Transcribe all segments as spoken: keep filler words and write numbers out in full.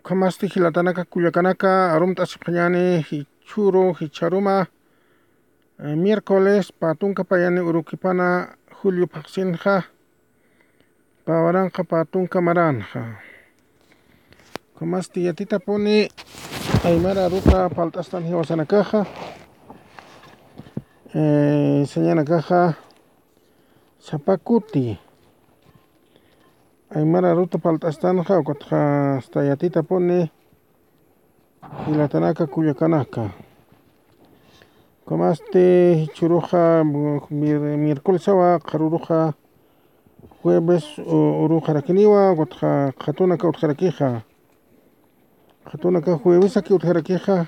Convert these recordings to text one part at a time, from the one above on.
Ukhamasti jilatanaka kullakanaka, arumt'asipxañäni jichhüru, jichharuma, eh, miércoles, pä tunka payani urukipana julio phaxsinxa, pä waranqa pä tunka maränxa. Ukhamasti yatitapuni aymara aruta palt'astan jiwasanakaxa, eh, sañanakaxa, sapa kuti aymara aruta palt'astanxa, ukatxa hasta yatitapuni jilatanaka kullakanaka. Ukhamasti jichhüruxa, mir-, miércolesawa, qharüruxa jueves u-, uruxarakiniwa, ukatxa qhatunaka utjarakixa. Qhatunaka juevesaki utjarakixa,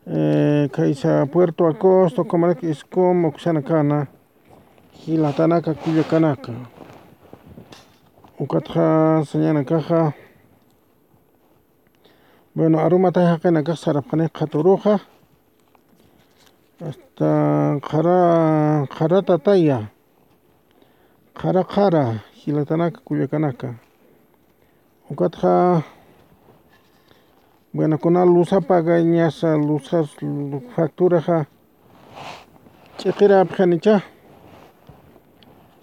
eh, khaysa Puerto Acosta, ukhamarak Iscom uksanakana, jilatanaka kullakanaka. Ukatxa sañanakaxa, bueno, arumatay jaqinakax sarapxani qhatüruxa, hasta qhara, qhara tataya, qhara qhara, jilatanaka kullakanaka. Ukatxa, bueno, kuna luz apagañasa, luzas facturaxa ch'iqirapxanicha,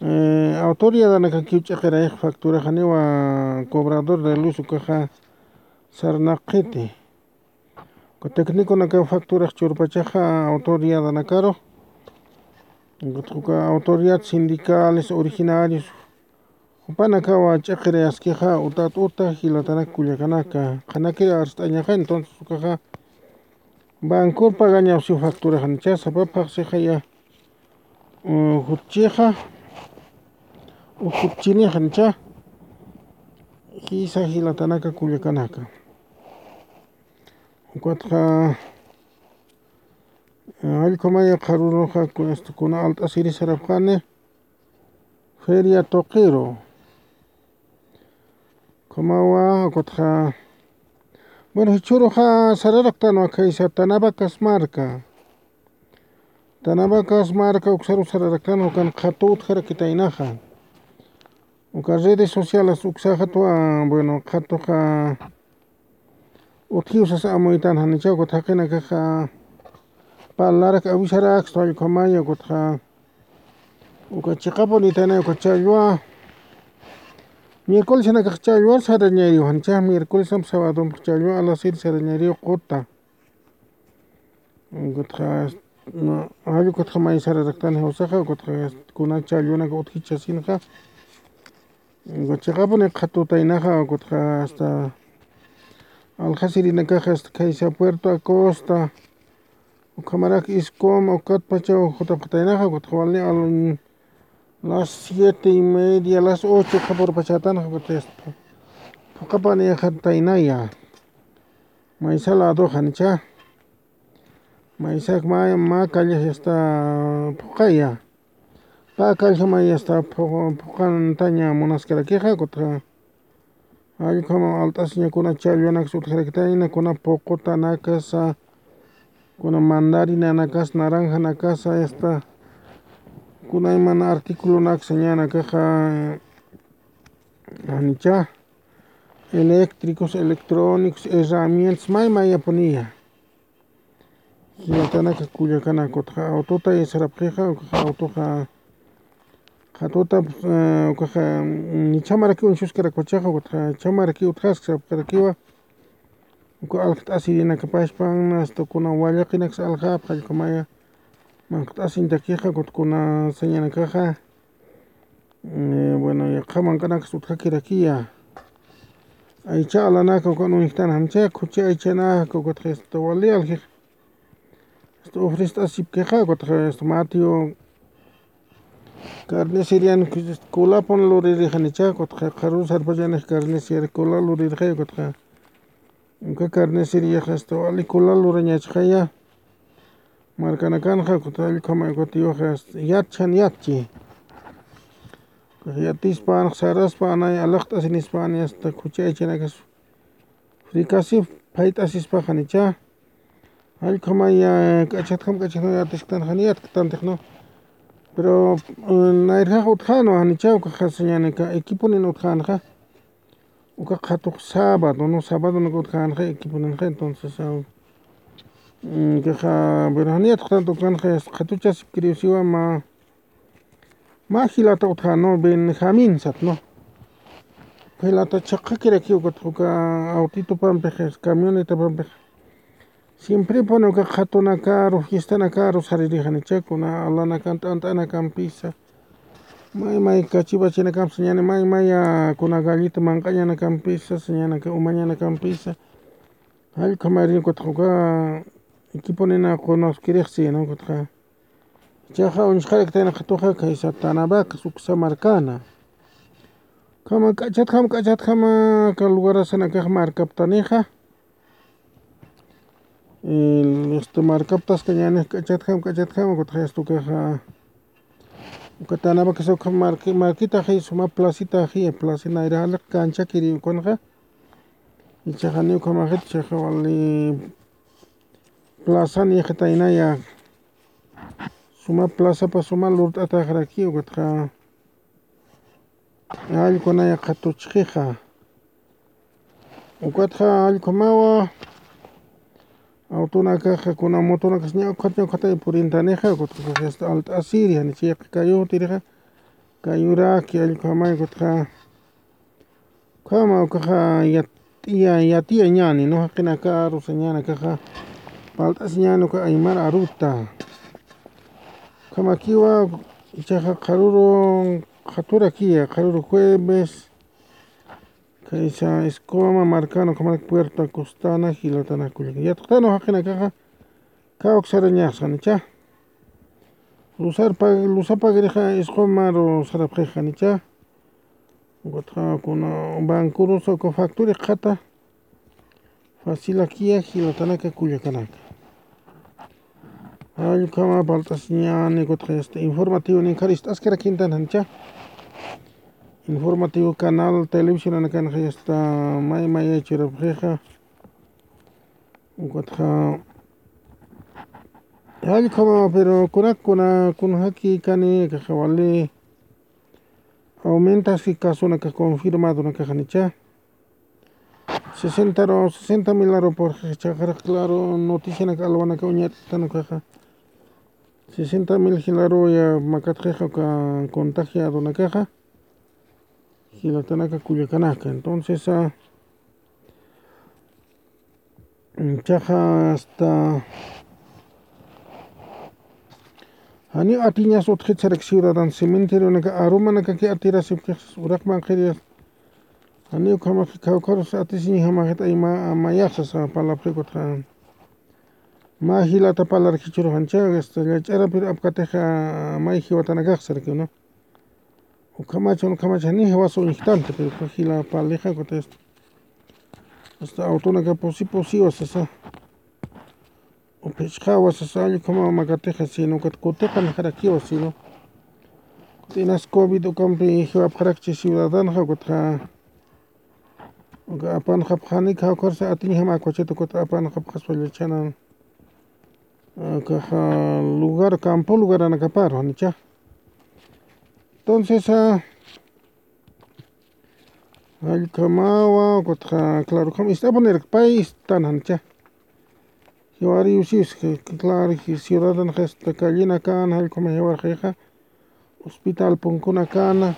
eh, autoridadanakakiw ch'iqirayxa facturaxa, janiwa cobrador de luz ukaxa sarnaqiti. Uka técniconakaw facturax churpachaxa autoridadanakaru. Uka autoridad sindicales, originarios, jupanakawa ch'iqirayaskixa, utat uta, jilatanaka kullakanaka, qhanakir arst'añaxa, entonces ukaxa bancor pagañapsiw facturaxanicha, sapa phaxsixaya, u, jutchixa, u jutchinixanicha, jisa jilatanaka kullakanaka. Ukatxa, eh, jallkhamaya qharüruxa ku-, este, kuna alt'asiri sarapxani, feria tuqiru. Ukhamawa, ukatxa, bueno, jichhüruxa sararaktanwa khaysa Tanabacas marca. Tanabacas marca uksaru sararaktanwa, ukan qhatu utjarakitaynaxa. Uka redes sociales uksaxatwa, bueno, qhatuxa utjiw sasa amuytan janicha, ukat jaqinakaxa parlarak avisarakistu, jallkhamaya, ukatxa uka chiqapunitayna, uka challwa, miércolesanakax challwar sarañayriw janicha, miércolesamp sabadump challwa alasir sarañayriw quta. Ukatxa, no, jall ukatxa may sararaktan jiwasaxa, ukatxa kuna challwanaka utjichasinxa. Uka chiqapuni qhatutaynaxa, ukatxa hasta aljasirinakaxa, hasta khaysa Puerto Acosta, ukhamarak Iscom, ukatpachaw jutapxataynaxa, ukatxa wali al-, las siete y media, las ocho qhapurpachätanxa, ukatxa hasta phuqapanïxataynaya. Maysa ladoxa janicha. Maysak mä, mä calle hasta phuqaya. Pä calle may hasta phu-, phuqantaña munaskarakixa, ukatxa jallkhama alt'asiña kuna challwanaksa utjarakitayna, kuna puqutanakasa, kuna mandarinanakasa, naranjanakasa, hasta kuna iman articulonaksa ñanakaxa, janicha, eléctricos, electrónicos, herramientas, may mayapuniya. Jilatanaka kullakanaka, ukatxa autota sarapxixa, ukatxa autoxa, qhatuta, eh, ukatxa, mm, chhamaraki uñchuskarakpachaxa, ukatxa chhamaraki utjaskasapxarakiwa, uka aljt'asirinakapachpan, hasta kuna wallaqinaksa aljapxa, jallkhamaya, manqt'asiñatakixa, ukat kuna sañanakaxa, eh, bueno, yaqha manq'anaksa utjakirakiya. Aycha alanaka ukan uñjtan janicha, khuchi aychanaka, ukatxa hasta wali aljix, hasta ofrest'asipkixa, ukatxa hasta Mateo carnicerian, kulapun luririxanicha, ukatxa qharürun sarpachanix carnicería kula luririxay, ukatxa uka carniceriaxa hasta wali kula lurañachxaya. Markanakanxa, ukatxa jallkhama, ukatxa yatchan yatchi. Yatispan, saraspan, anay alaqt'asinispan, hasta khuchi aychanakas frikasip, phayt'asispa janicha. Jallkhamaya, k'achatjam, k'achatjam yatisktan, jani yatktanti, ¿no? Pero, eh, nayrjax utjänwa janicha, ukaxa sañänika, equiponin utjänxa. Uka qhatuq sábado, ¿no? Sábado, ¿no? Utjänxa, equiponinxa, entonces, ah, mm, kaxa, pero janiyat qhatuq utjänxa, qhatuchasipkiriw siwa mä, mä jilata utjä, ¿no? Benjamín sat, ¿no? Jilata chhaqhakirakiw ukat uka autitupampix, camionetapampix. Siemprepuni uka qhatunakaru, fiestanakaru saririxanicha, kuna alanakan t'ant'anakampisa. May may kachipachinakamp sañäni, may may, ah, kuna gallito manq'añanakampisa, sañänaka umañanakampisa. Jall ukhamarïn ukatxa uka equiponina qunaskirixsi, ¿no? Ukatxa. Ichaxa uñst'araktanxa tuxa khaysa Tanabacas uksa markana. Ukhama k'achatjam, k'achatjama, aka lugarasanakax markaptanixa. El, este, markaptaskañänix k'achatjam, k'achatjam, ukatxa, este, ukaxa, uka Tanabacas ukha marqui-, marquitaxi, suma placitaxi, plaza nayra jaliq canchakiri ukanxa. Ichaxa janiw ukhamaxit, ichaxa wali plaza niyxitaynaya. Suma plazapa suma lurt'ataxaraki, ukatxa. Allkunaya qhatuchxixa. Ukatxa allkumawa. Autonakaxa, kuna motonakax ña ukhat, ña ukhatay purintanixa, ukatxa alt'asiri, janicha yaqha kayutirixa. Kayuraki allkumawa, ukatxa. Ukhama ukaxa yatiya, yatiyañäni, ¿no? Jaqinakaru sañänakaxa. Palt'asiñäni uka aymar aruta. Ukhamakiwa, ichaxa qharüru qhaturakiya, qharüru jueves. Khaysa Escoma markana, ukhamarak Puerto Acostana, jilatanaka kullaka. Yatxtanu jaqinakaxa, kawk sarañaxsa janicha. Lusarpa, lusapagrixa Escomaru sarapxix janicha. Ukatxa kuna bankurusa uka factura qhata. Facilakiya jilatanaka kullakanaka. Jall ukhama palt'asiñäni, ukatxa, este, informativo ninkhar ist'askarakintan janicha. Informativo canal televisionanakanxa, este, may mayay churapxixa. Ukatxa, jall ukhama, pero kunak, kuna, kunjaki kani, kaxa wali. Aumentaski casonakax confirmadonakax janicha. Sesenta ru, sesenta mil aru purxixa, ichaxa claro, noticianak alwanaka uñat'tan ukaxa. Sesenta mil jilaruya makatxixa uka contagiadonakaxa. Jilatanaka kullakanaka. Entonces, ah, ichaxa hasta janiw atiñas utjit sarak ciudadano cementerionaka arumanakaki atirasipkix uraqman qhiriyas. Janiw ukhamax kawkharus atisiñjamaxit ayma, mayaxsa sasa palapxi ukatxa. Mä jilata parlarkichuru janicha, hasta llach'arapir apkatixa may jiwatanakax saraki, ¿no? Ukhamach, ukhamach, janiw jiwas uñjtanti, pero uka jila parlixa, ukatxa hasta autonaka pusi pusiwa sasa. Uphichxawa sasa, jall ukhama makatixa, sino ukat kutiqanxarakiwa, sino. Ukat inas covid ukampi jiwapxarakchi ciudadanoxa, ukatxa. Uka apanxapxani, kawkharsa atiñjama akwachit, ukat apanxapxaspa llachhanan. Akaxa lugar, campo lugaranakaparu, janicha. Entonces, ah, jall ukhamawa, ukatxa, claro, ukham ist'apunirak pay ist'tan janicha. Jiwariw siwis, claro, ciudadano hasta callinakan, jall ukhama jiwarxixa, hospital punkunakana,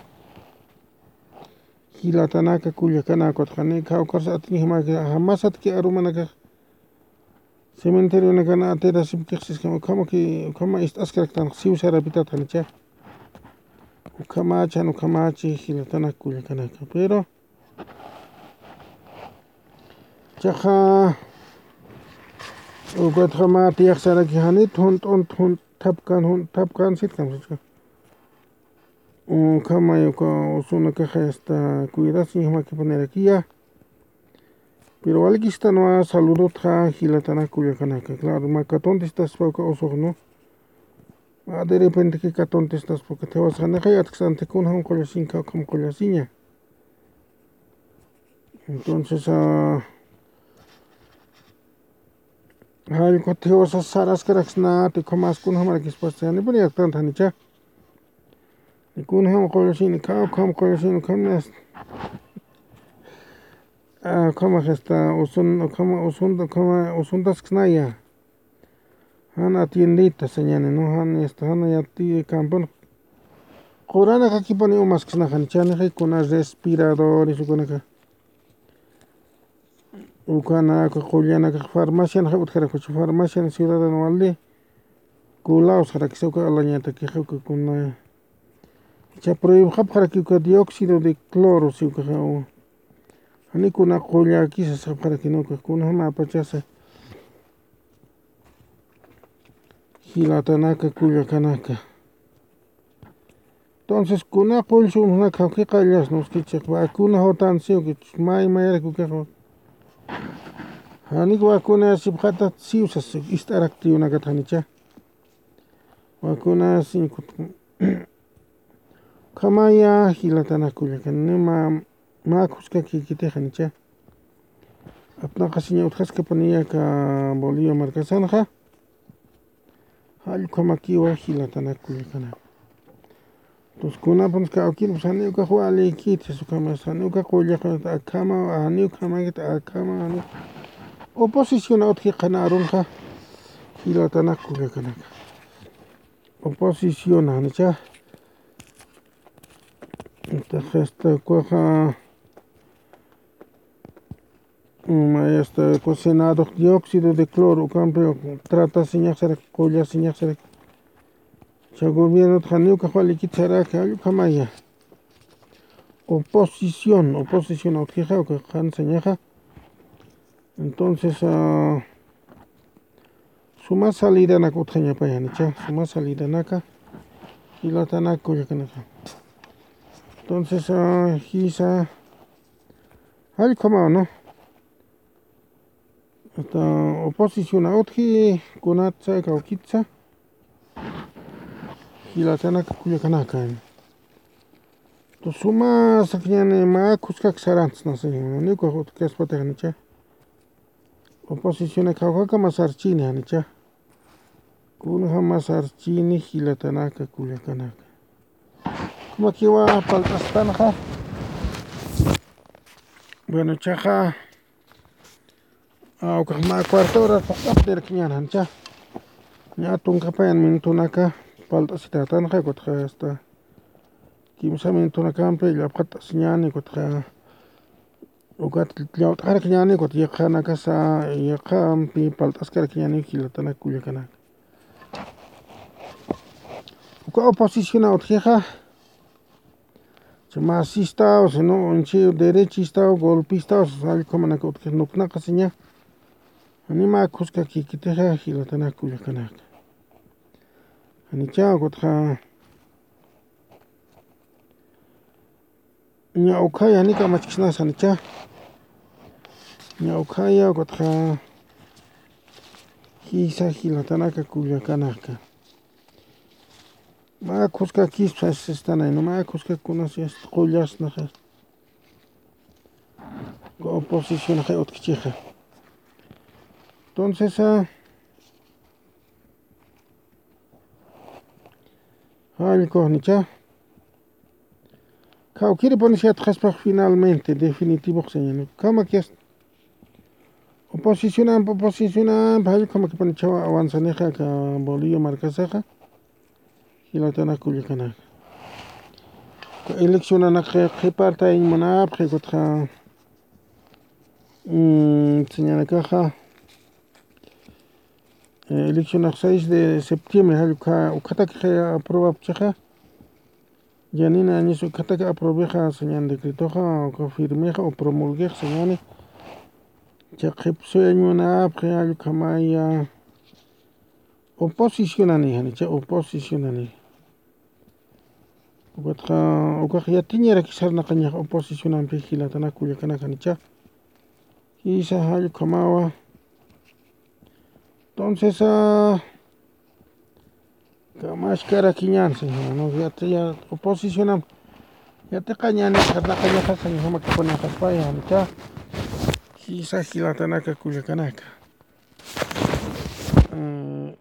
jilatanaka kullakanaka, ukatxa, janiw kawkharsa atiñjama, jamasatki arumanakax. Cementerionakana atirasipkix siskama, ukhamaki, ukhama ist'askaraktan siw sarapitat janicha. Ukhamachan, ukhamachi, jilatanaka kullakanaka. Pero, ichaxa, ukatxa mä tiyax saraki janit, junt'unt, junt'thapkan, junt'thapkan, sitkamsichka. Ukhamay uka usunakaxa hasta cuidasiñjamakipunirakïya. Pero walikistanwa saludotxa jilatanaka kullakanaka. Claro, mä katuntestaspa uka usux, ¿no? Mä de repenteki katuntestaspa uka jiwasa, janixa yatksänti kunjam qullasiñ, kawkham qullasiña. Entonces, ah, jall ukat jiwasa saraskaraksnati, ukhamas kunjamarakispas, janipuni yatktanti janicha. Kunjam qullasiñ, kawkham qullasiñ, ukham nas. Ukhama hasta usun, ukhama usun, ukhama usuntasksnaya. Jan atiendita sañani, ¿no? Jan, este, jan yati campon. Quranakakipuni umasksnaxa, janicha, nixa kuna respiradores ukanaka. Ukanaka, qullanaka, farmacianxa utjarakuchi, farmacian ciudadano wali. Kulaw sarakisa uka alañatakixa uka kuna. Cha prohibxapxaraki uka dióxido de cloro, si ukaxa, u. Jani kuna qullakisa sapxaraki, ¿no? Uka kuna jama apachasa. Jilatanaka, kullakanaka. Entonces, kuna qullsumsnaka jawkiqallas, ¿no? Uskichix vacuna jotan siw, que may mayarak ukaxa. Janik vacuna sipxatat siw sas ist'arakti unakat, janicha. Vacuna siw kut-, ukhamaya, jilatanaka, kullakanaka, nima mä khuskakikitix, janicha. Apnaqasiña utjaskapuniya aka Bolivia markasanxa. Jall ukhamakiwa, jilatanaka, kullakanaka. Entonces, kunapans kawkirpus jani ukax walikiti, sas ukhama, jani uka qullax akhama, jani ukhamakit akhama, jani. Oposición utji qhana arunxa, jilatanaka, kullakanaka. Oposición, janicha. Entonces, esta ukaxa, mm, esta, uka Senado dióxido de cloro, ukampi tratasiñax saraki, qullasiñax saraki. Cha gobierno jani ukax walikit saraki, jall ukhamaya. Oposición, oposición utjixa, uka qhan sañaxa. Entonces, ah, suma salidanaka utjañapaya, janicha, suma salidanaka, jilatanaka, kullakanaka. Entonces, ah, jisa, jall ukhamawa, ¿no? Hasta oposición utji, kunatsa, kawkitsa. Jilatanaka, kullakanaka. Entonces, suma sakiñäni, mä khuskak sarantsna, janiw ukax utjkaspatix, janicha. Oposición kawkaka mä sarchini, janicha. Kunjama sarchini, jilatanaka, kullakanaka. Ukhamakiwa palt'astanxa. Bueno, chaxa, ah, ukax mä cuarto hora phuqt'aptirakiñäni, janicha. Ña tunka payan minutonaka palt'asitätanxa, ukatxa hasta kimsa minutonakampi llapxatasiñäni, ukatxa ukat llawt'arakiñäni, ukat yaqhanakasa, yaqhampi palt'askarakiñäni, jilatanaka, kullakanaka. Uka oposición utjixa, cha masistaw, sino, uñchi derechistaw, golpistaw, sas jall ukhamanaka utjix nuknaqasiña. Jani mä khuskakikitixa, jilatanaka, kullakanaka. Janicha, ukatxa ña ukhaya, jani kamachksnasa, janicha. Ña ukhaya, ukatxa jisa, jilatanaka, kullakanaka. Mä khuskakispa sistanay, ¿no? Mä khuskak kunas, este, qullasnaxa. Oposicionxa utjkichixa. Entonces, ah, jall ukax, janicha. Kawkiripuni yatxaspax finalmente, definitivox sañäni. Ukhamakis oposicionamp, oposicionamp, jall ukhamakipuni chawa avanzanixa aka Bolivia markasaxa. Jilatanaka, kullakanaka. Eleccionanak qhipartañ munapxi, ukatxa, mm, sañanakaxa, eh, eleccionax seis de septiembre, jall ukha, ukhatakix aprobapchixa. Yanina Añas ukhatak aprobixa sañäni decretoxa, uka firmixa o promulguix sañäni. Cha qhipsuyañ munapxi, jall ukhamaya. Oposicionani, janicha, oposicionani. Ukatxa, ukax yatiñarakis sarnaqañax oposicionampi, jilatanaka, kullakanaka, janicha. Jisa, jall ukhamawa. Entonces, ah, kamachkarakiñän, señor, ¿no? Yati-, ya, oposicionamp yatiqañäni, sarnaqañaxa, señor, jamakipunixa pay, janicha. Jisa, jilatanaka, kullakanaka. Mm,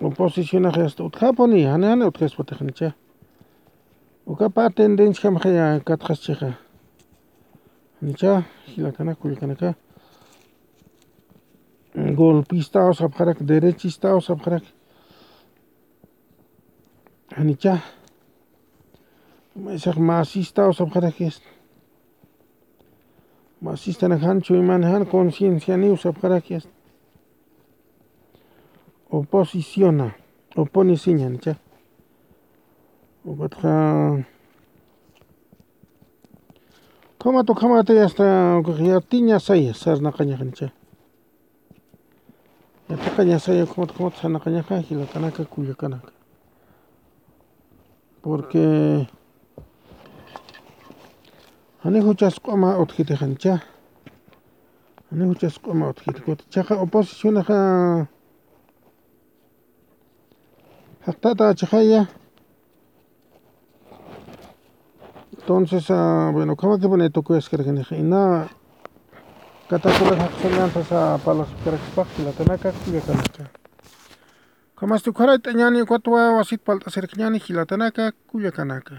oposicionax hasta utjapuni, jani, jani utjaspatix, janicha. Uka pä tendenciajamxaya katxaschixa. Janicha, jilatanaka, kullakanaka. Golpistaw sapxarak, derechistaw sapxarak. Janicha. Maysax masistaw sapxarak. Masistanak jan chuyman jan conciencianiw sapxarak. Oposiciona, oponisiña, janicha. Ukatxa, ukhamat, ukhamat, hasta, ukax yatiñasaya sarnaqañaxa, janicha. Yatiqañasaya, ukhamat, ukhamat sarnaqañaxa, jilatanaka, kullakanaka. Porque jani juchas q'uma utjiti, janicha. Jani juchas q'uma utjiti. Kutichaxa oposicionaxa jaqtata achixaya. Entonces, ah, bueno, ukhamakipuni tukuyaskarakinixa. Ina katakular jaqsuñan sasa parlasipkarakispax, jilatanaka, kullakanaka. Ukhamasti ukharay t'añani, ukatwa wasit palt'asirkiñani, jilatanaka, kullakanaka.